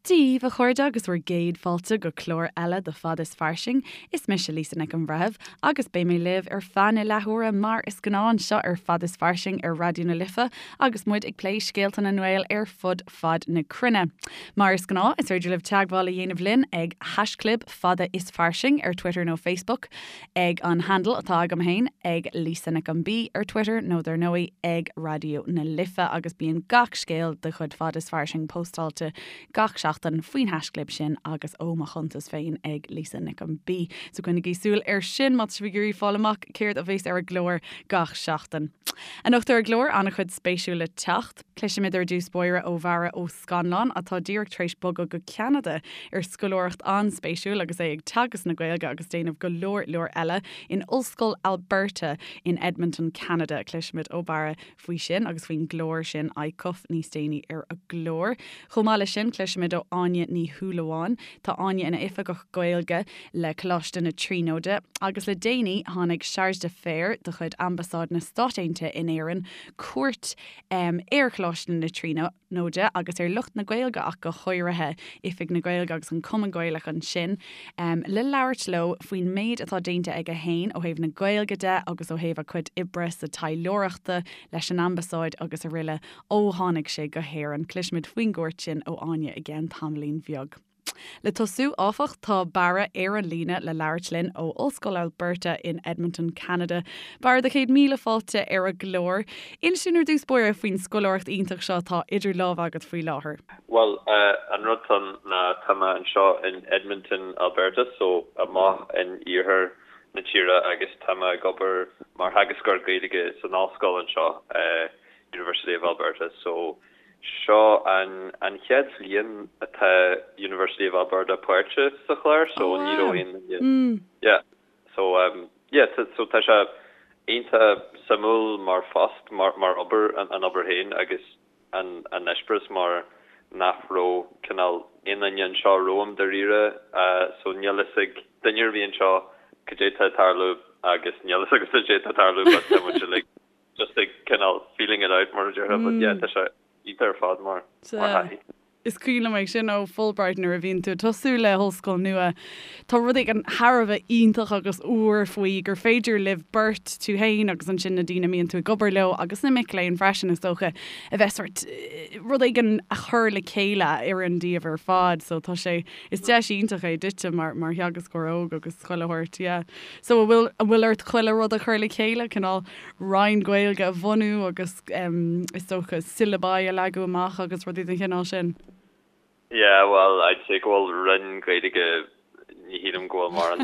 Dia dhaoibh, a chairde, agus bhur gcéad fáilte go clár eile de Fad is Fairsing. Is mise Lisa Nic an Bhreithimh agus beidh mé libh ar feadh na leathuaire mar is gnáth anseo ar Fad is Fairsing ar Raidió na Life agus muid ag plé scéalta na nGael ar fud fad na cruinne. Mar is gnáth, is féidir libh teagmháil a dhéanamh linn ag haischlib fada is fairsing ar Twitter nó Facebook, ag an handle atá agam féin, ag Lisa Nic an B ar Twitter nó dar ndóigh ag Raidió na Life agus bíonn gach scéal de chuid Fad is Fairsing póstáilte gach seachtain faoin haischlib sin agus ó mo chuntas féin ag Lisa Nic an B. So coinnigí súil air sin má tá sibh ag iarraidh fáil amach céard a bheas ar an gclár gach seachtain. Anocht ar an gclár, an-chuid spéisiúil le teacht. Cloisfimid ar dtús báire ó Bharra Ó Scannláin, atá díreach tar éis bogadh go Ceanada ar scoláireacht an-spéisiúil agus é ag teagasc na Gaeilge agus déanamh go leor leor eile in Ollscoil Alberta in Edmonton, Ceanada. Cloisfimid ó Bharra faoi sin agus faoin gclár sin, ICUF, níos déanaí ar an gclár. Chomh maith leis sin, cloisfimid ó Áine Ní Shúilleabháin. Tá Áine ina Oifigeach Gaeilge le Coláiste na Tríonóide agus le déanaí tháinig Chargé d'Affaires de chuid Ambasáid na Stát Aontaithe in Éirinn cuairt ar Choláiste na Tríonóide agus ar lucht na Gaeilge ach go háirithe, Oifig na Gaeilge agus an Cumann Gaelach ansin, le labhairt leo faoin méid atá déanta aige féin ó thaobh na Gaeilge de agus ó thaobh a chuid oibre sa taidhleoireachta leis an Ambasáid agus araile ó tháinig sé go hÉirinn. Cloisfimid faoin gcuairt sin ó Áine i gceann tamaillín bheag. Le tosú, áfach, tá Barra ar an líne le labhairt linn ó Ollscoil Alberta in Edmonton, Ceanada. Barra, do chéad míle fáilte ar an gclár. Inis dúinn ar dtús báire faoin scoláireacht iontach seo atá idir lámha agat faoi láthair. Bhuel, an rud atá ann ná tá mé anseo in Edmonton, Alberta, so amach in iarthar na tíre agus tá mé ag obair mar theagascóir Gaeilge san ollscoil anseo, University of Alberta. So Seo an an chéad bhliain atá University of Alberta páirteach sa chlár so Oh ní raibh wow. aon duine yeah so um yeah tá so tá sé iontach suimiúil mar phost mar mar obair an an obair féin agus an an eispéireas mar nach raibh cineál aon duine anseo romham dáiríre so níl fhios ag duine ar bith anseo cad é tá ag tarlú agus níl fhios agamsa cad é tá ag tarlú but tá muid uilig just ag cineál feeling it out mar a déarfá but yeah tá sé iontach ar fad mar mar thaithí. Is cuimhin liom é sin ó Fulbright nuair a bhíonn tú ag tosú le hollscoil nua tá rud éigin thar a bheith iontach agus úr faoi gur féidir libh beirt, tú féin agus ansin na daoine a mbíonn tú ag obair leo agus na mic léinn freisin is dócha, a bheith sort rud éigin a chur le chéile a oireann daoibh ar fad so tá sé is deis iontach é duitse mar mar theagascóir óg agus chuile shórt yeah. So an bhfuil an bhfuil ort chuile rud a chur le chéile cineál roinn Gaeilge a bhunú agus is dócha syllabi a leagadh amach agus rudaí den chineál sin? Yeah, well, I'd say go bhfuil roinn Gaeilge, ní shílim go bhfuil mórán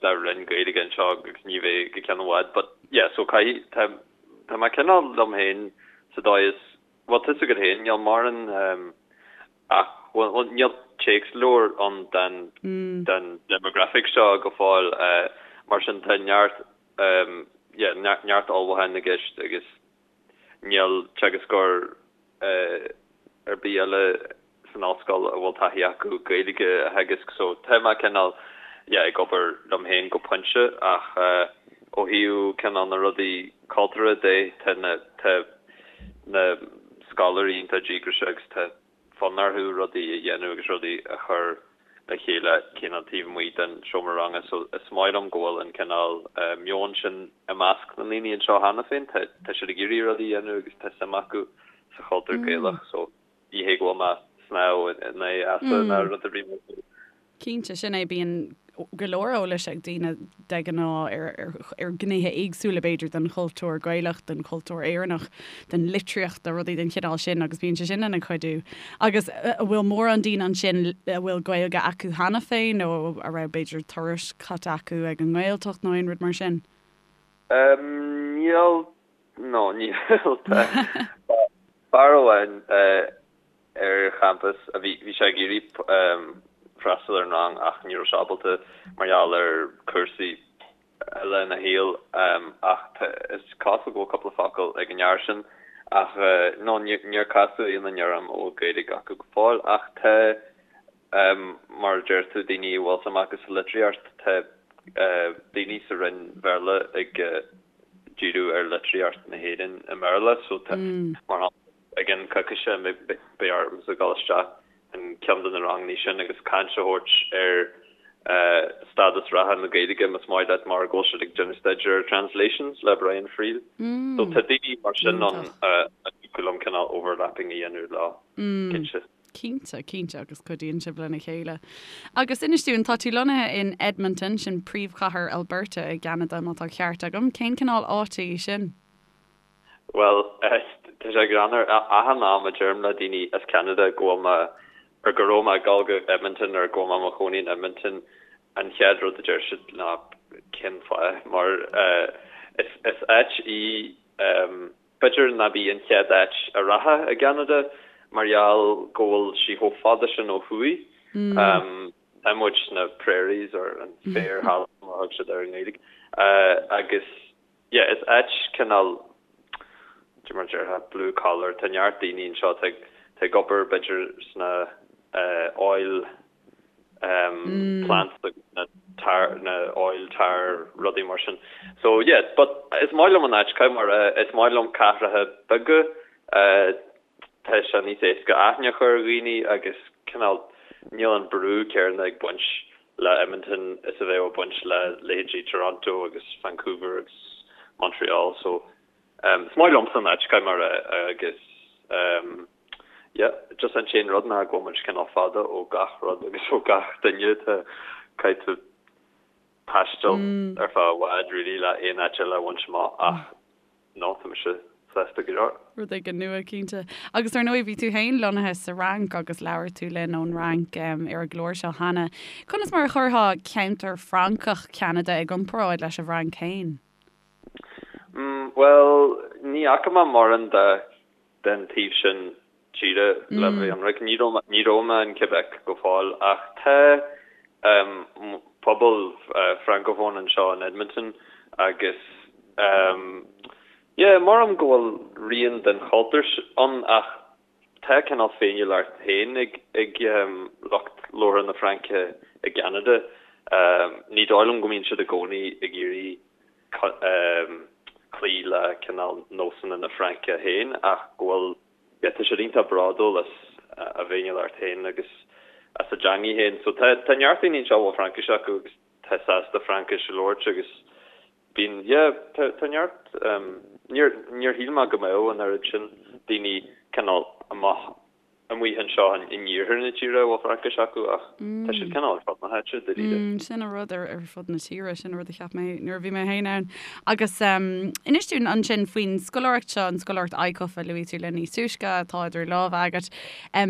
de roinn Gaeilge anseo agus ní bheidh go ceann i bhfad, but yeah, so caithfidh, tá, tá mé cineál liom féin sa dóigh is, bhuel, tá 'fhios agat féin, níl mórán, Ach, bhuel, níl téacsleabhar ann den den demographic seo go fóill, mar sin tá neart, yeah, neart ullmhúcháin i gceist agus níl teagascóir ar bith eile san ollscoil a bhfuil taithí acu Gaeilge a theagasc so tá mé cineál, yeah, ag obair liom féin go pointe ach ó thaobh cineál na rudaí cultúrtha de tá na, tá na scoláirí iontach díograiseach agus tá fonn orthu rudaí a dhéanamh agus rudaí a chur le chéile cineál taobh amuigh den seomra ranga so is maith liom go bhfuil an cineál meon sin i measc na ndaoine anseo cheana féin. Tá tá siad ag iarraidh rudaí a dhéanamh agus tá suim acu sa chultúr Gaelach so ní hé go bhfuil mé ag snámh in aghaidh easa ná rud ar bith mar sin. Cinnte, sin é, bíonn go leor eolais ag daoine de ghnáth ar ghnéithe éagsúla, b'fhéidir, den chultúr Gaelach, den chultúr Éireannach, den litríocht, de rudaí den chineál sin agus bíonn sé sin ina chuidiú. Agus an bhfuil mórán daoine ansin a bhfuil Gaeilge acu cheana féin nó a raibh, b'fhéidir, turais caite acu ag an nGaeltacht nó aon rud mar sin? Níl, no, níl. Tá fear amháin ar champas a bhí, bhí sé ag iarraidh freastal ar an rang ach ní raibh sé ábalta mar gheall ar cúrsaí eile ina shaol ach tá, is cosúil go bhfuil cúpla focal ag an fhear sin ach no níor casadh aon duine orm a bhfuil Gaeilge acu go fóill ach tá mar a deir tú daoine a bhfuil suim acu sa litríocht, tá daoine sa Roinn Bhéarla ag díriú ar litríocht na hÉireann i mBéarla so tá, mar shampla, I gceann coicíse beidh ormsa dul isteach. in ceann de na ranganna sin agus caint a thabhairt ar stádas reatha na Gaeilge, más maith leat, mar go bhfuil siad ag déanamh staidéar ar Translations le Brian Friel. So tá daoine mar sin ann a dtiocfadh liom cineál overlapping a dhéanamh leo, cinnte. Cinnte, cinnte, agus cuidíonn sibh lena chéile. Agus inis dúinn, tá tú lonnaithe in Edmonton, sin príomhchathair Alberta i gCeanada, má tá ceart agam. Cén cineál áite í sin? Bhuel, tá sé greannmhar. Achan am a deirim le daoine as Ceanada go bhfuil mé, or go raibh mé ag dul go Edmonton or go bhfuil mé i mo chónaí in Edmonton, an chéad rud a deir siad ná cén fáth? Mar is áit í, b'fhéidir nárbh í an chéad áit a rachfá i gCeanada mar gheall go bhfuil sí chomh fada sin ó thuaidh. Tá muid sna prairies or an féarthalamh mar a thug siad air i nGaeilge agus Yeah, is áit cineál, cad é mar a déarfá, blue collar, tá neart daoine anseo atá ag, atá ag obair b'fhéidir sna oil plants agus na tar, na oil tar rudaí mar sin. So yeah, but is maith liom an áit, caithfidh mé a rá, is maith liom cathracha beaga, tá sé níos éasca aithne a chur ar dhaoine agus cineál níl an brú céanna ag baint le Edmonton is a bheadh ag baint le leithéidí Toronto agus Vancouver agus Montreal so is maith liomsa an áit, caithfidh mé a rá agus yeah just an t-aon rud ná go bhfuil muid cineál fada ó gach rud agus ó gach duine tá caithfidh tú taisteal ar feadh i bhfad really le aon áit eile a bhaint amach ach No, tá mise sásta go leor. Rud éigin nua, cinnte. Agus ar ndóigh, bhí tú féin lonnaithe sa Fhrainc agus labhair tú linn ón Fhrainc ar an gclár seo cheana. Conas mar a chuirfeá ceantar Francach Cheanada i gcomparáid leis an bhFrainc féin? Bhuel, ní fhaca mé mórán de den taobh sin tíre le bheith ionraic. Ní raibh ní raibh mé in Quebec go fóill ach tá pobal francophone anseo in Edmonton agus yeah mothaím go bhfuil rian den chultúr ann ach tá cineál féiniúlacht féin ag ag lucht labhartha na Fraince i gCeanada. Ní dóigh liom go mbíonn siad i gcónaí ag iarraidh cloí le cineál nósanna na Fraince féin ach go bhfuil, yeah, tá siad iontach bródúil as a bhféiniúlacht féin agus as a dteangaidh féin. So tá, tá neart daoine anseo a bhfuil Fraincis acu agus tá sásta Fraincis a labhairt agus bíonn, yeah, tá, tá neart, níor, níor shíl mé go mbeadh an oiread sin daoine cineál amach amuigh anseo in iarthar na tíre a bhfuil Fraincis acu ach tá siad cineál ar fud na háite, dáiríre. Sin an rud ar fud na tíre, sin an rud a cheap mé nuair a bhí mé féin ann. Agus inis dúinn ansin faoin scoláireacht seo, an scoláireacht ICUF a luaigh tú linn níos túisce, atá idir lámha agat.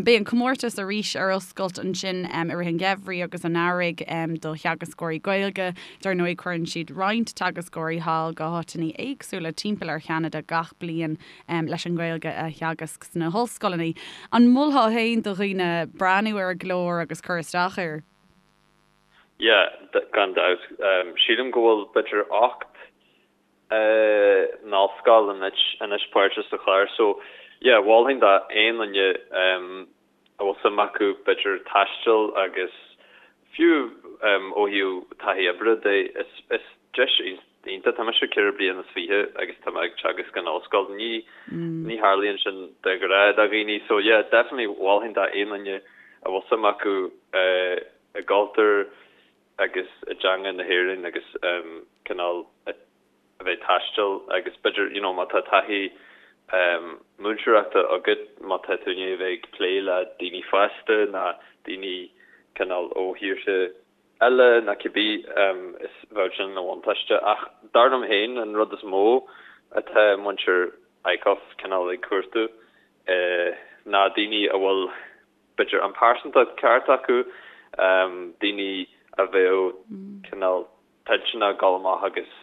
Beidh an comórtas arís ar oscailt ansin i rith an gheimhridh agus an earraigh do theagascóirí Gaeilge. Dar ndóigh cuireann siad roinnt teagascóirí thall go háiteanna éagsúla timpeall ar Cheanada gach bliain. leis an nGaeilge a theagasc sna hollscoileanna. An molfá féin do dhaoine breathnú ar an gclár agus cur isteach air? Yeah, gan dabht. Sílim go bhfuil b'fhéidir 8 n-ollscoil anois páirteach sa chlár so yeah, mholfainn d'aon duine a bhfuil suim acu b'fhéidir taisteal agus fiú ó thaobh taithí oibre de, is deis iontach. Tá mise 24 bliana agus tá mé ag teagasc in ollscoil. Ní ní tharlaíonn sin de ghnáth do dhaoine so yeah definitely mholfainn d'aon duine a bhfuil suim acu i gcultúr agus i dteanga na hÉireann agus cineál a a bheith ag taisteal agus b'fhéidir you know má tá taithí múinteoireachta agat, má tá tú i ndiaidh a bheith ag plé le daoine fásta ná daoine cineál ó thíortha eile ná cibé is bheadh sin ina bhuntáiste. Ach dar liom féin an rud is mó atá muintir ICUF cineál ag cuartú ná daoine a bhfuil b'fhéidir an pearsantacht ceart acu, daoine a bheadh cineál toilteanach dul amach agus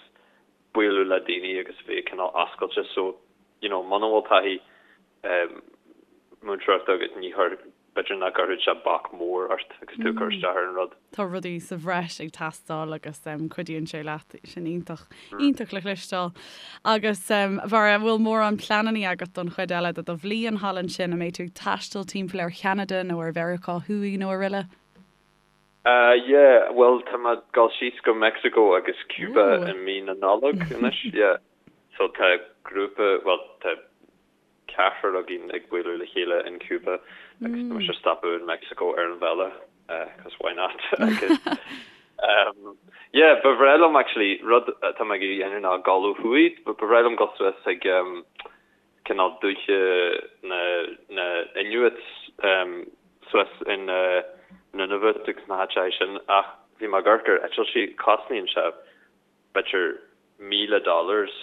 bualadh le daoine agus bheith cineál oscailte so you know muna bhfuil taithí múinteoireachta agat ní chuir b'fhéidir nach gcuirfeadh sé bac mór ort agus tú ag cur isteach ar an rud. Tá rudaí sa bhreis ag teastáil agus cuidíonn sé leat, sin iontach, iontach le cloisteáil. Agus a Bharra, an bhfuil mórán pleananna agat don chuid eile de do bhliain thall ansin, an mbeidh tú ag taisteal timpeall ar Cheanada nó ar Mheiriceá Thuaidh nó araile? Yeah, bhuel tá mé ag dul síos go Mexico agus Cuba i mí na Nollag anois, yeah. So tá grúpa, bhuel tá ceathrar againn ag bualadh le chéile in Cuba. Agus tá mise ag stopadh in Mexico ar an bhealach cos why not agus yeah ba bhreá liom actually rud atá mé ag iarraidh a dhéanamh ná dul ó thuaidh ba bhreá liom dul suas ag cineál dúiche na na Inuits suas in Nunavut agus na háiteacha sin ach bhí mé ag amharc ar eitiltí cosnaíonn sé b'fhéidir 1,000 dollars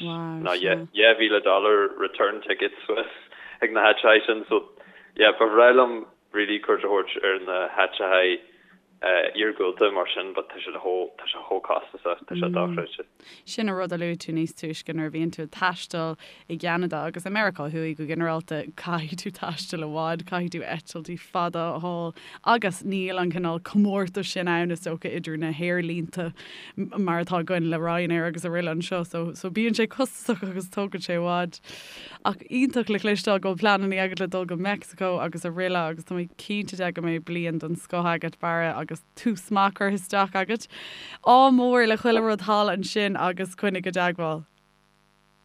nó 2,000 dollar return ticket suas ag na háiteacha sin so yeah ba bhreá liom really cuairt a thabhairt ar na háiteacha iargúlta mar sin but tá sé chomh tá sé chomh costasach tá sé dochreidte. Sin an rud a luaigh tú níos túisce nuair a bhíonn tú ag taisteal i gCeanada agus i Meiriceá Thuaidh go ginearálta caithfidh tú taisteal i bhfad, caithfidh tú eitiltí fada a fháil agus níl an cineál comórtais sin ann is dócha idir na haerlínte mar atá againn le Ryanair agus araile anseo so so bíonn sé costasach agus tógann sé i bhfad. Ach iontach le cloisteáil go bhfuil pleananna agat le dul go Meicsiceo agus araile agus tá mé cinnte de go mbeidh bliain den scoth agat Barra agus tús maith curtha isteach agat. Ádh mór le chuile rud thall ansin agus coinnigh i dteagmháil.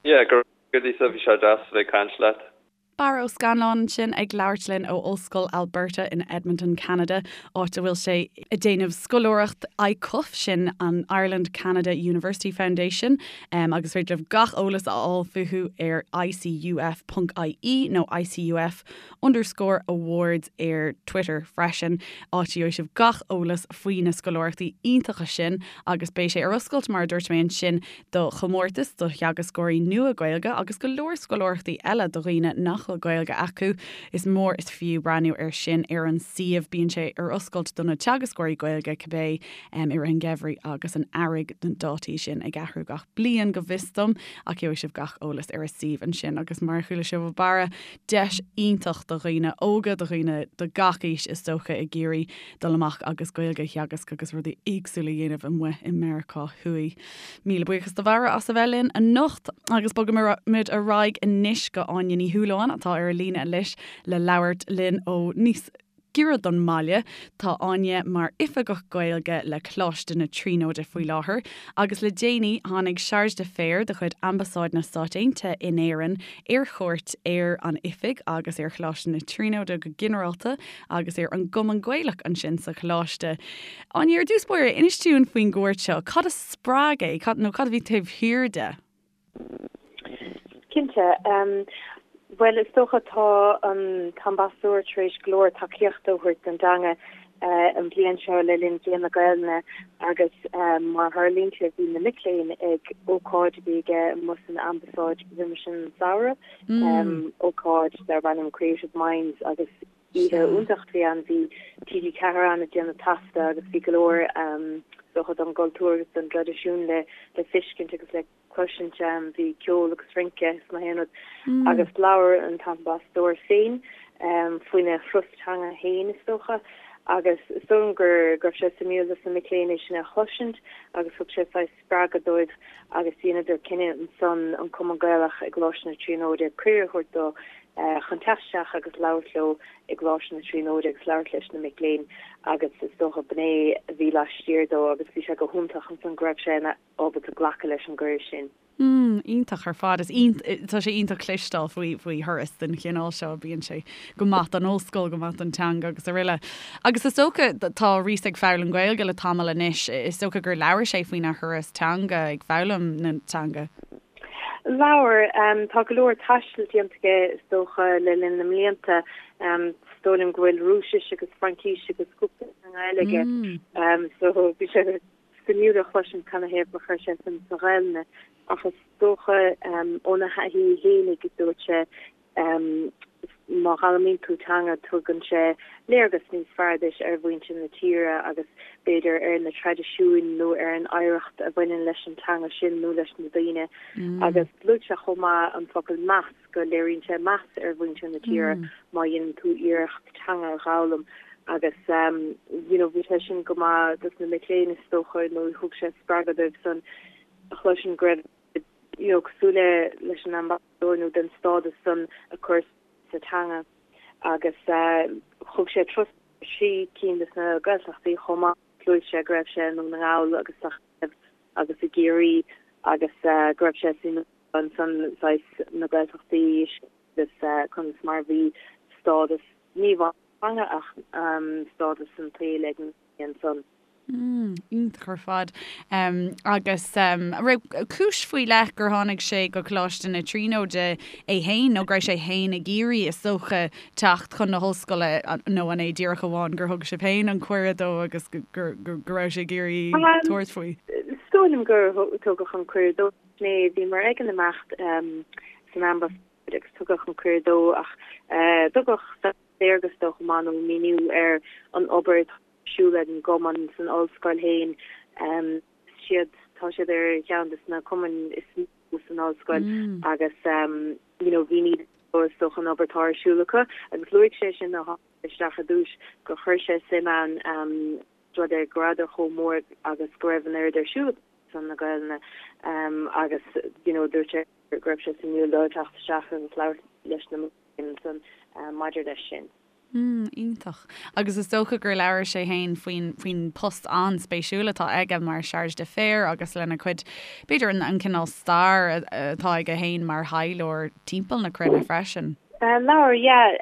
Yeah, go raibh Lisa, bhí sé deas a bheith ag caint leat. Barra Ó Scannláin ansin ag labhairt linn ó Ollscoil Alberta in Edmonton, Ceanada, áit a bhfuil sé ag déanamh scoláireacht ICUF, sin an Ireland Canada University Foundation, agus is féidir libh gach eolas a fháil fúthu ar icuf.ie nó ICUF underscore awards ar Twitter freisin, áit a gheobhaidh sibh gach eolas faoi na scoláireachtaí iontacha sin agus beidh sé ar oscailt, mar a dúirt mé ansin, do chomórtas do theagascóirí nua Gaeilge agus go leor scoláireachtaí eile do dhaoine nach bhfuil Gaeilge acu. Is mór is fiú breathnú air sin ar an suíomh. Bíonn sé ar oscailt do na teagascóirí Gaeilge cibé i rith an gheimhridh agus an earraigh, na dátaí sin ag athrú gach bliain go bhfios dom, ach gheobhaidh sibh gach eolas ar an suíomh ansin agus mar a chuala sibh ó Barra, deis iontach do dhaoine óga, do dhaoine de gach aois is dócha ag iarraidh dul amach agus Gaeilge a theagasc agus rudaí éagsúla a dhéanamh amuigh i Meiriceá Thuaidh. Míle buíochas do Bharra as a bheith linn anocht agus bogfaimid ar aghaidh anois go Áine Ní Shúilleabháin atá ar an líne anois le labhairt linn ó níos giorra don mbaile. Tá Áine mar Oifigeach Gaeilge le Coláiste na Tríonóide faoi láthair agus le déanaí tháinig Chargé d'Affaires de chuid Ambasáid na Stát Aontaithe in Éirinn ar chuairt ar an oifig agus ar Choláiste na Tríonóide go ginearálta agus ar an gCumann Gaelach ansin sa choláiste. Áine, ar dtús báire, inis dúinn faoin gcuairt seo. Cad a spreag é? Cad, nó cad a bhí taobh thiar de? Cinnte. Bhuel, is dócha tá an t-ambasadóir tar éis go leor tacaíochta a thabhairt don dteanga an bhliain seo le linn Bhliain na Gaelainne agus mar a tharlaíonn sé bhí na mic léinn ag ócáid a bhí aige amuigh san ambasáid roimis an samhradh, ócáid darb ainm Creative Minds agus oíche iontach a bhí ann. Bhí TG4 ann ag déanamh taifeadta agus bhí go leor is dócha don gcultúr agus don dtraidisiún le le feiscint agus le cloisint. Bhí ceol agus rince is gach aon rud agus labhair an t-ambasadóir féin faoina thuras teanga féin is dócha agus is dóigh liom go raibh sé suimiúil dos na mic léinn é sin a chloisint agus thug sé saghas spreagadh dóibh agus dheineadar cinneadh ansan an Cumann Gaelach i gColáiste na Tríonóide cuireadh a thabhairt dó chun teacht isteach agus labhairt leo i gColáiste na Tríonóide agus labhairt leis na mic léinn agus is dócha b'in é a bhí laistiar dó agus bhí sé go hiontach ansan go raibh sé ina ábalta glacadh leis an gcuireadh sin. Mm, iontach ar fad. Is tá sé iontach cloisteáil faoi faoi thuras den chineál seo. Bíonn sé go maith don ollscoil, go maith don teanga agus araile. Agus is dócha tá Rhys ag foghlaim Gaeilge le tamall anois. Is dócha gur labhair sé faoina thuras teanga ag foghlaim na teanga. Labhair. Tá go leor taistil déanta aige is dócha le linn na mblianta. Is dóigh liom go bhfuil Rúisis agus Fraincís agus cúpla teanga eile aige. So bhí sé suimiúil a chloisint canathaobh gur chuir sé suim sa Ghaelainn ach is dócha óna thaithí fhéinig dúirt sé má fhoghlaimíonn tú teanga tugann sé léargas níos fearr duit ar mhuintir na tíre agus b'fhéidir ar na traidisiúin nó ar an oidhreacht a bhaineann leis an teanga sin nó leis na daoine agus luaigh sé chomh maith an focal meas go léiríonn sé meas ar mhuintir na tíre má dhéanann tú iarracht teanga a dh'fhoghlaim agus you know bhí sé sin go maith dos na mic léinn is dócha nó thug sé spreagadh dóibh san a chloisint go raibh you know cosúil le leis an ambasadóir nó den stádas san a chur sa teanga agus thug sé turas trí cinn des na Gaeltachtaí chomh maith luaigh sé go raibh sé i nDún na nGall agus sa agus i gCiarraí agus go raibh sé suimiúil ansan saghas na Gaeltachtaí agus conas mar a bhí stádas ní amháin. teanga ach stádas an tsaoil ag na daoine ansan. Mm, iontach ar fad. Agus an raibh cúis faoi leith gur tháinig sé go Coláiste na Tríonóide é féin nó go raibh sé féin ag iarraidh, is dócha, teacht chun na hollscoile nó an é díreach amháin gur thug sibh féin an cuireadh dó agus go raibh sé ag iarraidh tabhairt faoi? Is dóigh liom gur tugadh an cuireadh dó. Bhíomar ag an imeacht san ambasáid agus tugadh an cuireadh dó ach tugadh léargas dó chomh maith nó míniú ar an obair atá ar siúl ag an gcumann san ollscoil féin. Siad, tá siad ar cheann de na cumainn is mó san ollscoil agus you know mhínigh dó is dócha an obair atá ar siúl acu agus luaigh sé sin nuair a tháinig sé isteach ar dtús gur chuir sé suim ann rud é go rabhadar chomh mór agus go raibh an oiread ar siúl acu ar son na Gaelainne agus you know dúirt sé go raibh sé suimiúil dó teacht isteach agus labhairt leis na mic léinn ansan maidir leis sin. Mm, iontach. Agus is dócha gur labhair sé féin faoin, faoin post an-spéisiúil atá aige mar Chargé d'Affaires agus lena chuid, b'fhéidir an, an cineál stair atá aige féin mar thaidhleoir timpeall na cruinne freisin. Labhair, yeah.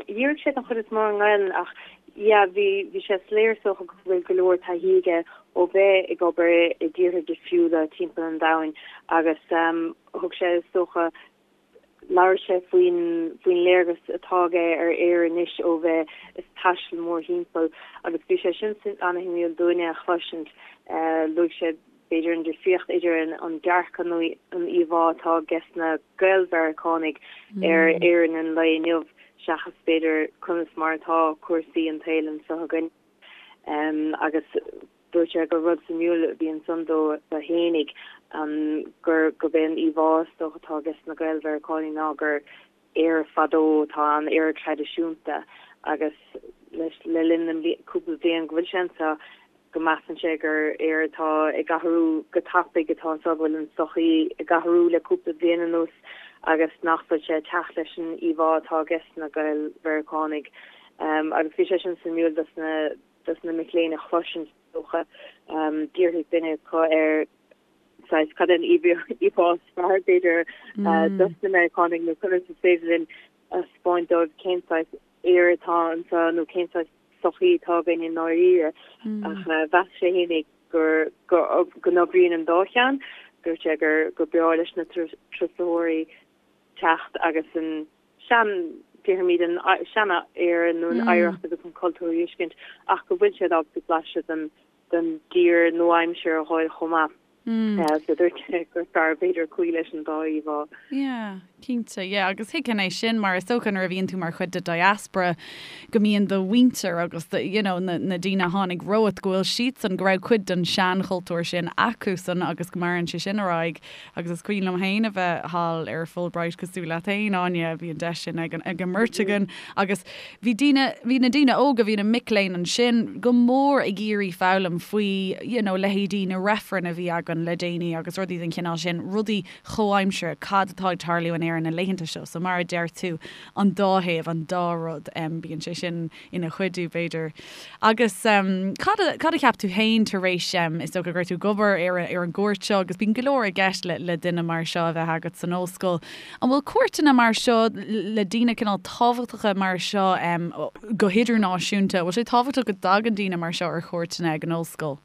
Dhírigh sé den chuid is mó ar an nGaelainn ach yeah, bhí, bhí sé soiléir is dócha go bhfuil go leor taithí aige ó bheith ag obair i dtíortha difriúla timpeall an domhain agus thug sé is dócha Labhair sé faoin faoin léargas atá aige ar Éire anois ó bheith ag taisteal mórthimpeall agus bhí sé sin an-shuimiúil dúinne a chloisint. Luaigh sé b'fhéidir an difríocht idir an dearcadh nó an íomhá atá ages na Gael-Mheiriceánaigh ar Éirinn an lae inniu seachas b'fhéidir conas mar atá cúrsaí an tsaoil anseo againn. Agus Dúirt sé gur rud suimiúil a bhí ansan dó fhéinig gur gurb é an íomhá is dócha atá ages na Gael-Mheiriceánaigh ná gur Éire fadó atá ann, Éire traidisiúnta agus leis le linn na cúpla bliain go bhfuil sé anseo go measann sé gur Éire atá ag athrú go tapaidh atá anseo, go bhfuil an tsochaí ag athrú le cúpla bliain anuas agus nach bhfuil sé ag teacht leis an íomhá atá ages na Gael-Mheiriceánaigh. Agus bhí sé sin suimiúil dos na dos na mic léinn a chloisint is dócha. D'fhiafraigh duine acu ar saghas cad é an íomhá is fearr b'fhéidir dos na Meiriceánaigh nó conas is féidir linn a 'speáint dóibh cén saghas Éire atá anseo nó cén saghas sochaí atá againn i ndáiríre. Ach mheas sé fhéinig gur go n-oibríonn an dá cheann. Dúirt sé gur gur breá leis na turasóirí teacht agus an sean, déarfaimid an sean-Éire nó an oidhreacht agus an cultúr a fheiscint ach go bhfuil siad ábalta blaiseadh den den dtír nua-aimseartha a fháil chomh maith. So dúirt sé gur fearr b'fhéidir cloí leis an dá íomhá. Yeah, cinnte, yeah agus thuigfinn é sin mar is dócha nuair a bhíonn tú mar chuid de diaspora go mbíonn do mhuintir agus do, you know, na, na daoine a tháinig romhat go bhfuil siadsan, go raibh cuid den seanchultúr sin acusan agus go maireann sé sin ar aghaidh. Agus is cuimhin liom féin a bheith thall ar Fulbright cosúil leat féin, Áine, bhí an deis sin ag an mbeirt againn agus bhí daoine, bhí na daoine óga, bhí na mic léinn ansin go mór ag iarraidh foghlaim faoi you know leithéidí na reifreann a bhí againn le déanaí agus rudaí den chineál sin, rudaí chomhaimseartha, cad atá ag tarlú in Éirinn na laethanta seo. So mar a deir tú, an dá thaobh, an dá rud, bíonn sé sin ina chuidiú, b'fhéidir. Agus cad a, cad a cheap tú féin tar éis, is dócha go raibh tú ag obair ar, ar an gcuairt seo agus bíonn go leor i gceist le, le duine mar seo a bheith agat san ollscoil. An bhfuil cuairteanna mar seo le daoine cineál tábhachtacha mar seo go hidirnáisiúnta, an bhfuil sé tábhachtach go dtagann daoine mar seo ar chuairteanna ag an ollscoil?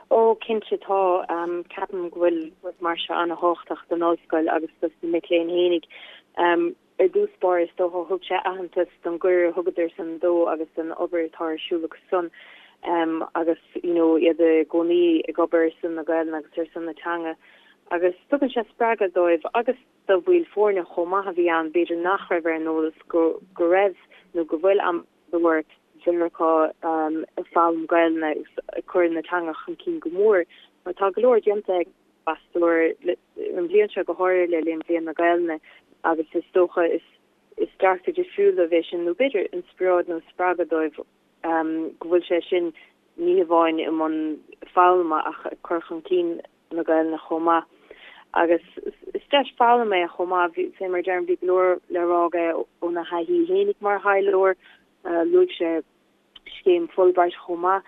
Ó, cinnte tá. Ceapaim go bhfuil rud mar seo an-thábhachtach don ollscoil agus dos na mic léinn fhéinig. Ar dtús báire, is dócha, thug sé aitheantas don gcuireadh a thugadar san dó agus don obair atá ar siúl acu san agus you know iad i gcónaí ag obair ar son na Gaelainne agus ar son na teanga agus tugann sé spreagadh dóibh agus do bhaill foirne chomh maith a bhí ann b'fhéidir nach raibh ar an eolas go go raibh nó go bhfuil ambasadóir Mheiriceá ag foghlaim Gaelainne agus ag cur na teanga chun cinn go mór mar tá go leor déanta ag ambasadóir an bhliain seo go háirithe le linn Bhliain na Gaelainne agus is dócha is is dearcadh difriúil dóibh é sin nó b'fhéidir inspioráid nó spreagadh dóibh go bhfuil sé sin ní hamháin i mbun foghlama ach ag cur chun cinn na Gaelainne chomh maith. Agus is deis foghlama é chomh maith, fé mar a deirim bhí go leor le rá aige óna thaithí fhéinig mar thaidhleoir, luaigh sé scéim Fulbright chomh maith.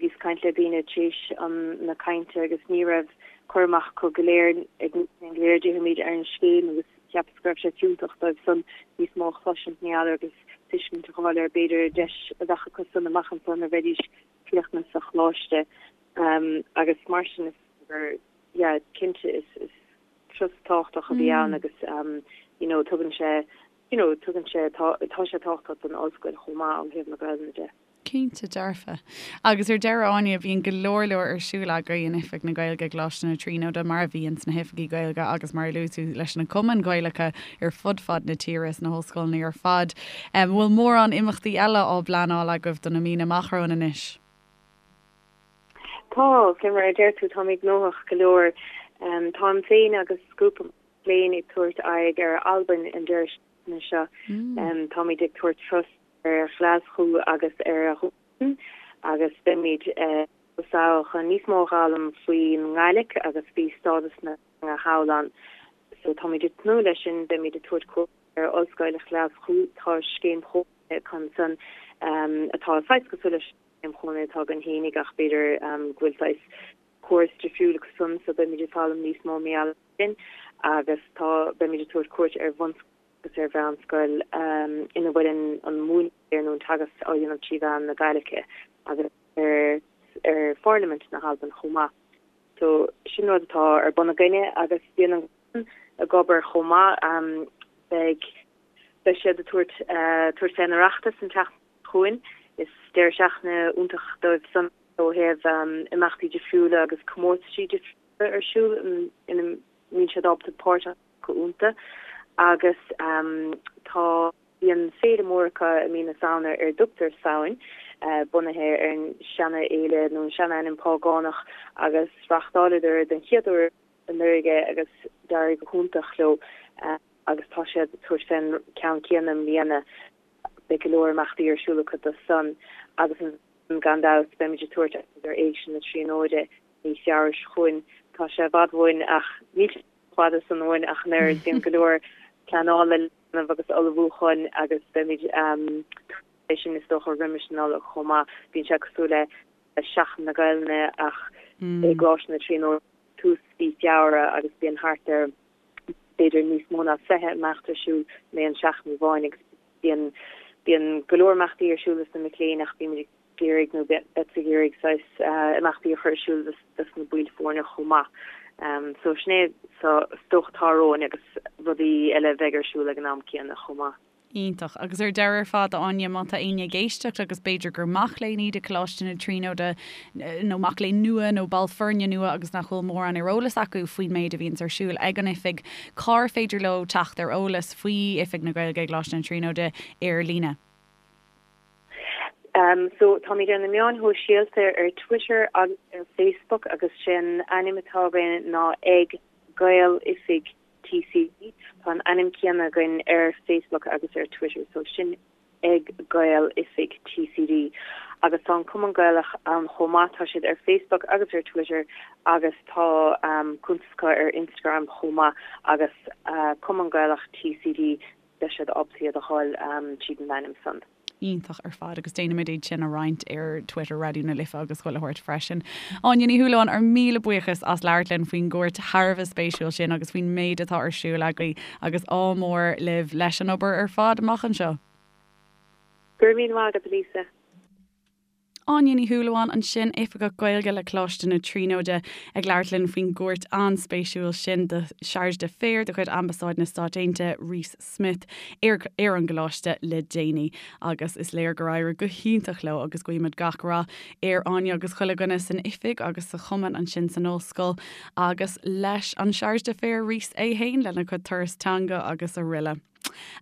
Bhíos ag caint le daoine tar éis na cainte agus ní raibh cur amach acu go léir, ag na mic léinn go léir, déarfaimid, ar an scéim agus cheapas go raibh sé fiúntach dóibh san níos mó a chloisint, ní fheadar, agus. tuiscint a fháil ar b'fhéidir deis a bheadh acu san amach anso nuair a bheidís críochnaithe sa choláiste agus mar sin is gur yeah cinnte is is turas tábhachtach a bhí ann agus you know tugann sé you know tugann sé tá tá sé tábhachtach don ollscoil chomh maith ó thaobh na Gaelainne de. Cinnte dearfa. Agus ar deireadh, Áine, bíonn go leor leor ar siúl agaibh in Oifig na Gaeilge i gColáiste na Tríonóide, mar a bhíonn sna hoifigí Gaeilge agus mar a luaigh tú leis na cumainn Ghaelacha ar fud fad na tíre sna hollscoileanna ar fad. An bhfuil mórán imeachtaí eile á bpleanáil agaibh do na míonna amach romhainn anois? Tá, fé mar a deir tú, táimid gnóthach go leor. Táim féin agus grúpa mac léinn ag tabhairt aghaidh ar Albain an deireadh seachtaine seo. Táimid ag tabhairt turas ar Ghlaschú agus ar Dhún agus beimid sall chun níos mó a fhoghlaim faoin nGaidhlic agus faoi stádas na teanga thall ann. So táimid ag tnúth leis sin, beimid ag tabhairt cuairt ar Ollscoil Ghlaschú, tá scéim chónaithe acu ansan atá saghas cosúil leis an scéim chónaithe atá againn fhéinig ach b'fhéidir go bhfuil saghas córas difriúil acu san so beimid ag foghlaim níos mó mar gheall sin agus tá beimid ag tabhairt cuairt ar bhunscoil agus ar mheánscoil ina bhfuil an múineadh nó an teagasc á dhéanamh trí mheán na Gaidhlice agus ar ar Pharlaimint na hAlban chomh maith. So sin rud atá ar bun againne agus bíonn an Cumann ag obair chomh maith. Beidh beidh siad ag tabhairt tabhairt fén Oireachtas an tseachtain seo chugainn. Is deireadh seachtaine iontach dóibh san ó thaobh imeachtaí difriúla agus comórtaisí difriúla ar siúl ina mbíonn siad ábalta páirt a ghlacadh iontu agus tá bíonn féile mór acu i mí na Samhna ar a dtugtar Samhain, bunaithe ar an seana-fhéile nó an seana-ainm págánach agus reáchtáileadar den chéad uair anuraidh é agus d'éirigh go hiontach leo agus tá siad ag tabhairt fén ceann céanna i mbliana. Beidh go leor imeachtaí ar siúl acu do san agus gan dabht beimid ag tabhairt aghaidh ar Éigse na Tríonóide mí Feabhra seo chugainn. Tá sé i bhfad uainn ach níl sé chomh fada san uainn ach an oiread. Bíonn go leor pleanála le déanamh agus ullmhúcháin agus beimid é sin is dócha roimis an Nollaig chomh maith. Bíonn sé cosúil le Seachtain na Gaelainne ach i gColáiste na Tríonóide tús mhí Feabhra agus bíonn thart ar b'fhéidir níos mó ná 20 imeacht ar siúl in aon seachtain amháin agus bíonn bíonn go leor imeachtaí ar siúl dos na mic léinn ach bímid ag iarraidh nó beadsa ag iarraidh saghas imeachtaí a chur ar siúl dos na baill foirne chomh maith. So sin é so is dócha atá romhainn agus rudaí eile a bheidh ar siúl ag an am céanna chomh maith. Iontach. Agus ar deireadh ar fad, a Áine, má tá éinne ag éisteacht agus b'fhéidir gur mac léinn iad i Coláiste na Tríonóide nó mac léinn nua nó ball foirne nua agus nach bhfuil mórán ar eolas acu faoin méid a bhíonns ar siúl ag an oifig, cár féidir leo teacht ar eolas faoi Oifig na Gaeilge i gColáiste na Tríonóide ar líne? So táimid ar na meáin shóisialta ar Twitter agus ar Facebook agus sé an ainm atá againn ná ag Gaeloifig TCD. Tá an ainm céanna againn ar Facebook agus ar Twitter, so sin ag Gael Oifig TCD. Agus tá an Cumann Gaelach ann chomh maith, tá siad ar Facebook agus ar Twitter agus tá cuntas acu ar Instagram chomh maith agus Cumann Gaelach TCD, beidh siad ábalta iad a fháil tríd an ainm san. Iontach ar fad agus déanfaimid iad sin a roinnt ar Twitter Raidió na Life agus chuile shórt freisin. Áine Ní Shúilleabháin, ár míle buíochas as labhairt linn faoin gcuairt thar a bheith spéisiúil sin agus faoin méid atá ar siúl agaibh agus ádh mór libh leis an obair ar fad amach anseo. Go raibh míle maith agat, a Lisa. Áine Ní Shúilleabháin ansin, Oifigeach Gaeilge le Coláiste na Tríonóide, ag labhairt linn faoin gcuairt an-spéisiúil sin do Chargé d'Affaires de chuid Ambasáid na Stát Aontaithe, Reese Smith, ar ar an gcoláiste le déanaí. Agus is léir gur éirigh go hiontach leo agus guímid gach rath ar Áine agus chuile dhuine san oifig agus sa chumann ansin san ollscoil agus leis an Chargé d'Affaires Reese é fhéin lena chuid turas teanga agus araile.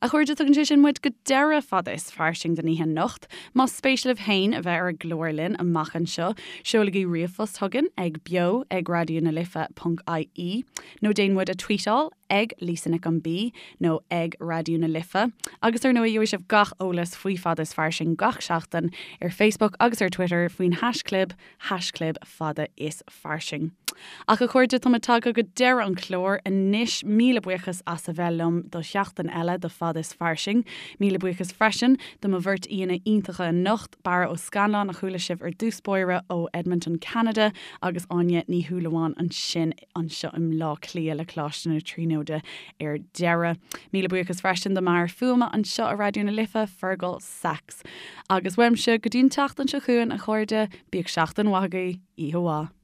A chairde, tugann sé sin muid go deireadh Fada is Fairsing don oíche anocht. Más spéis libh féin a bheith ar an gclár linn amach anseo, seolaigí ríomhphost chugainn ag beo ag raidió na life ponc ie nó déan muid a tweetáil ag Lisa Nic an B nó ag Raidió na Life. Agus ar ndóigh, gheobhaidh sibh gach eolas faoi Fada is Fairsing gach seachtain ar Facebook agus ar Twitter faoin haischlib, haischlib Fada is Fairsing. Ach a chairde, tá muid tagtha go deireadh an chláir anois. Míle buíochas as a bheith liom do sheachtain eile de Fad is Fairsing. Míle buíochas freisin do mo bheirt aíonna iontacha anocht, Barra Ó Scannláin a chuala sibh ar dtús báire ó Edmonton, Ceanada agus Áine Ní Shúilleabháin ansin anseo i mBleá Cliath le Coláiste na Tríonóide ar deireadh. Míle buíochas freisin do m'fhear fuaime anseo i Raidió na Life, Fergal Sachs. Agus uaimse go dtí an tseachtain seo chugainn, a chairde, bíodh seachtain mhaith agaibh, oíche mhaith.